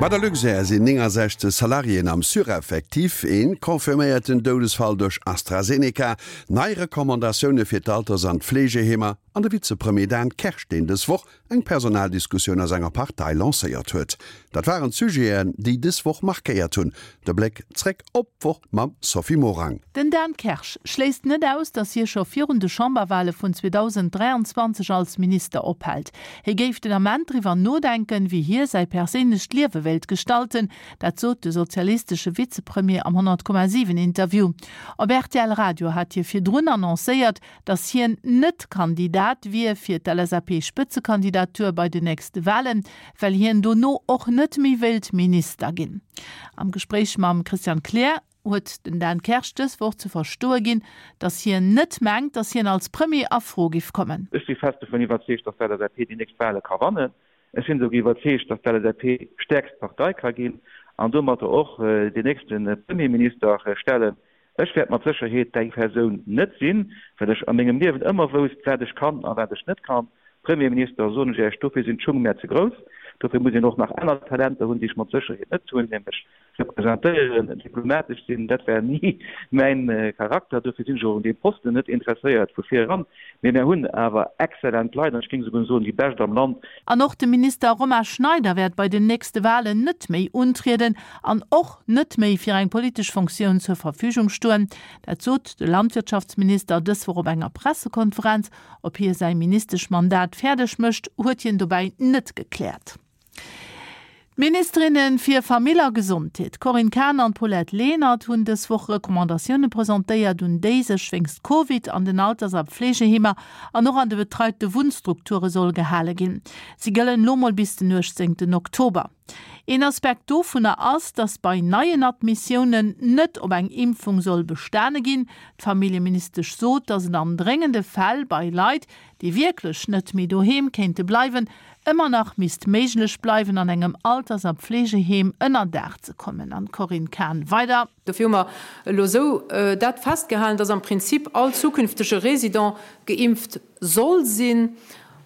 Bei der Luxair sinn 69 Salariéen am Sureffectif. Een confirméierten Doudesfall duerch AstraZeneca, nei Recommandatioune fir d'Alters an d'Fleegeheemer an de Vizepremier Dan Kersch, deen dës Woch eng Personaldiskussioun a senger Partei lancéiert huet. Dat waren d'Sujeten, déi dës Woch markéiert hunn. De Bléck zréck op d'Woch mam Sophie Morang. Den Dan Kersch schléisst net aus, datt hie scho virun de Chamberwale vun 2023 als Minister ophält. Hie géif den Ament driwwer nodenken, wéi hie säi perséinlecht Liewe wéilt gestalten. Dat sot de sozialistesche Vizepremier am 100,7 Interview. Op rtl Radio hat hie virdrun annoncéiert, datt hien net Kandidat wier fir d'LSAP-Spëtzekandidatur bei den nächste Walen, well hien dono och net méi wéilt Minister ginn. Am Gespréich mam Christian Kleer huet den Dan Kersch dës Woch ze verstoe ginn, datt hien net mengt, datt hien als Premier a Fro giff kommen. Ech si fest dovun iwwerzeegt, datt d'LSAP déi nächst Wale ka wannen. Ech sinn esouguer iwwerzeegt, datt d'LSAP stäerkst Partei ka ginn an domatter och deen nächste Premierminister stellen. Ech wäert mat Sécherheet däi Persoun net sinn, well ech a mengem Liewen ëmmer wousst, wat ech kann a wat ech net kann. Premierminister, soen ech Iech, dofir sinn d'Schung mär ze grouss. Dofir muss een och nach aner Talenter hunn, déi ech mat Sécherheet net hunn, nämlech representéieren, diplomatesch sinn. Dat war ni mäin Charakter. Dofir sinn ech och un deem Posten net interesséiert vu vir eran. Mee mär hunn awer exzellent Leit, an ech géing esouguer soen, déi bescht am Land. An och de Minister Romain Schneider wäert bei den nächste Walen net méi untrieden an och net méi fir eng politesch Fonctioun zur Verfügung stoen. Dat sot de Landwirtschaftsminister dës Woch op enger Pressekonferenz. Ob hie säi Ministeschmandat fäerdeg mécht, huet hien dobäi net gekläert. D'Ministerinne fir Famill a Gesondheet, Corinne Cahen an Paulette Lenert, hunn dës Woch Recommandatioune presentéiert, un déi sech wéinst Covid an den Alters a Pflegeheemer an och an de betreite Wunnstrukture soll gehale ginn. Si gëllen elo mol bis den 18 Oktober. Een Aspekt dovunner ass, datt bei neien Admissiounen net op eng Impfung soll bestane ginn. D'Familljeministesch sot, datt et an dréngende Fäll bei Leit, déi wierklech net méi doheem kéinte bleiwen, ëmmer nach misst méiglech bleiwen, an engem Alters a Pflegeheem ënner Daach ze kommen. An d'Corinne Cahen weider. Dofir hu mer elo esou dat festgehalen, datt am Prinzip all zukünftege Résident geimpft soll sinn.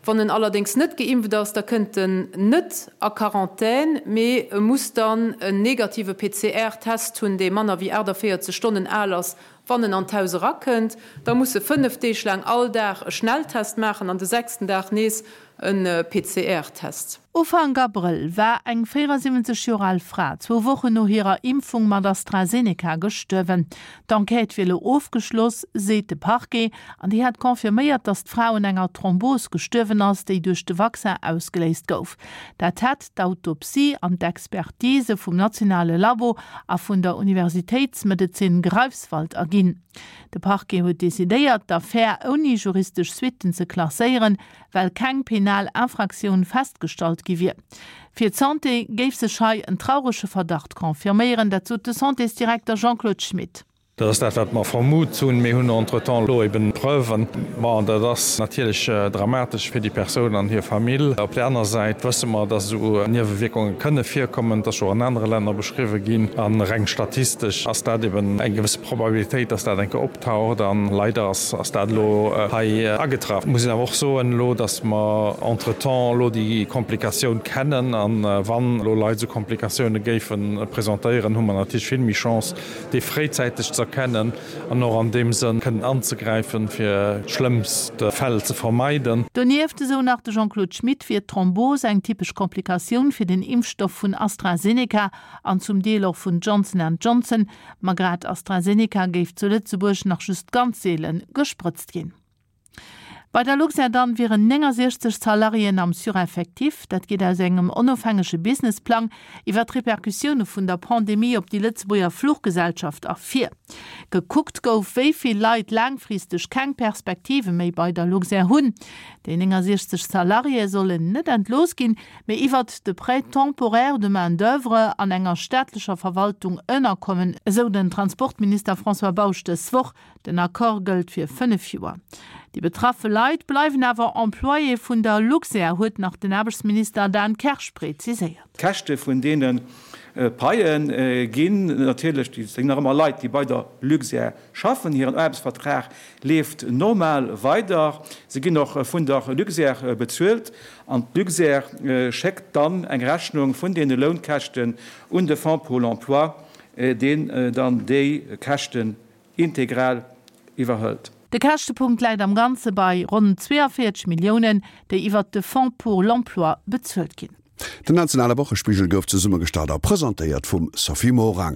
Wann en allerdéngs net geimpft ass, da kënnt en net a Quarantän, mee e muss dann en negative PCR-Test hunn, dee manner wéi 48 Stonnen al ass, wann en an d'Haus erakënnt. Da muss e 5 Deeg laang all Dag e Schnelltest maachen an de sechsten Dag nees e PCR-Test. Ufank Abrëll war eng 74 Joer al Fra zwou Wochen no hirer Impfung mat AstraZeneca gestuerwen. D'Enquête wier elo ofgeschloss, seet de Parquet, an déi hätt confirméiert, datt d'Fra un enger Thrombos gestuerwen ass, déi duerch de Vaccin ausgeléist gouf. Dat hätt d'Autopsie an d'Expertise vum nationale Labo a vun der Universitéitsmedezin Greifswald erginn. De Parquet huet decidéiert, d'Affär ouni juristesch Suitten ze klasséieren, well keng penal Infraktioun festgestallt gi wier. Fir d'Santé géif sech hei en traurege Verdacht confirméieren, dat sot de Santésdirekter Jean-Claude Schmit. Dat ass dat, wat mer vermut hunn. Mir hunn entretemps elo eben Preuven. Bon, dat ass natierlech dramatesch fir déi Persoun an hir Famill. Op där aner Säit wësse mer, dass esou Niewewierkunge kënne virkommen. Et ass scho an anere Länner beschriwwe ginn. A reng statistesch ass dat eben eng gewësse Probabilitéit, dass dat eng Kéier optaucht. A leider ass Ass dat elo hei agetraff? Muss een awer och soen elo, datt mer entretemps elo déi Komplikatioun kennen. A wann elo Leit esou Komplikatioune géife presentéieren, hu mer natierlech vill méi Chance, déi fréizäiteg ze erkennen an och an deem Sënn kënnen anzegräifen, fir schlëmmst Fäll ze vermeiden. Donieft, esou nach de Jean-Claude Schmit, wier d'Thrombos eng typesch Komplikatioun fir den Impfstoff vun AstraZeneca an zum Deel och vun Johnson and Johnson. Ma grad AstraZeneca géif zu Lëtzebuerg nach just ganz seele gesprëtzt ginn. Bei der Luxair dann wieren 69 Salariéen am Sureffectif. Dat geet aus engem onofhängege Businessplang iwwer d'Repercussioune vun der Pandemie op déi Lëtzebuerger Fluchgesellschaft ervir. Gekuckt gouf, wéi vill Leit laangfristeg keng Perspektive méi bei der Luxair hunn. Déi 69 Salariéë sollen net entlooss ginn, mee iwwert de Prêt temporaire de main d'oeuvre an enger staatlecher Verwaltung ënnerkommen, esou den Transportminister François Bausch dës Woch. Den Accord gëllt fir 5 Joer. Déi betraffe Leit bleiwen awer Employé vun der Luxair, huet nach den Aarbechtsminister Dan Kersch preziséiert. D'Käschte vun deene Paie ginn natierlech, déi sinn nach ëmmer Leit, déi bei der Luxair schaffen, hiren Aarbechtsvertrag leeft normal weider, se ginn och vun der Luxair bezuelt an d'Luxair schéckt dann eng Rechnung vun deene Lounkäschten un de Fonds pour l'emploi, deen dann déi Käschten integral iwwerhëlt. De Käschtepunkt läit am Ganze bei ronn 42 Milliounen, déi iwwert de Fonds pour l'emploi bezuelt ginn. Den nationale Wochespigel gouf zesummegestallt a presentéiert vum Sophie Morang.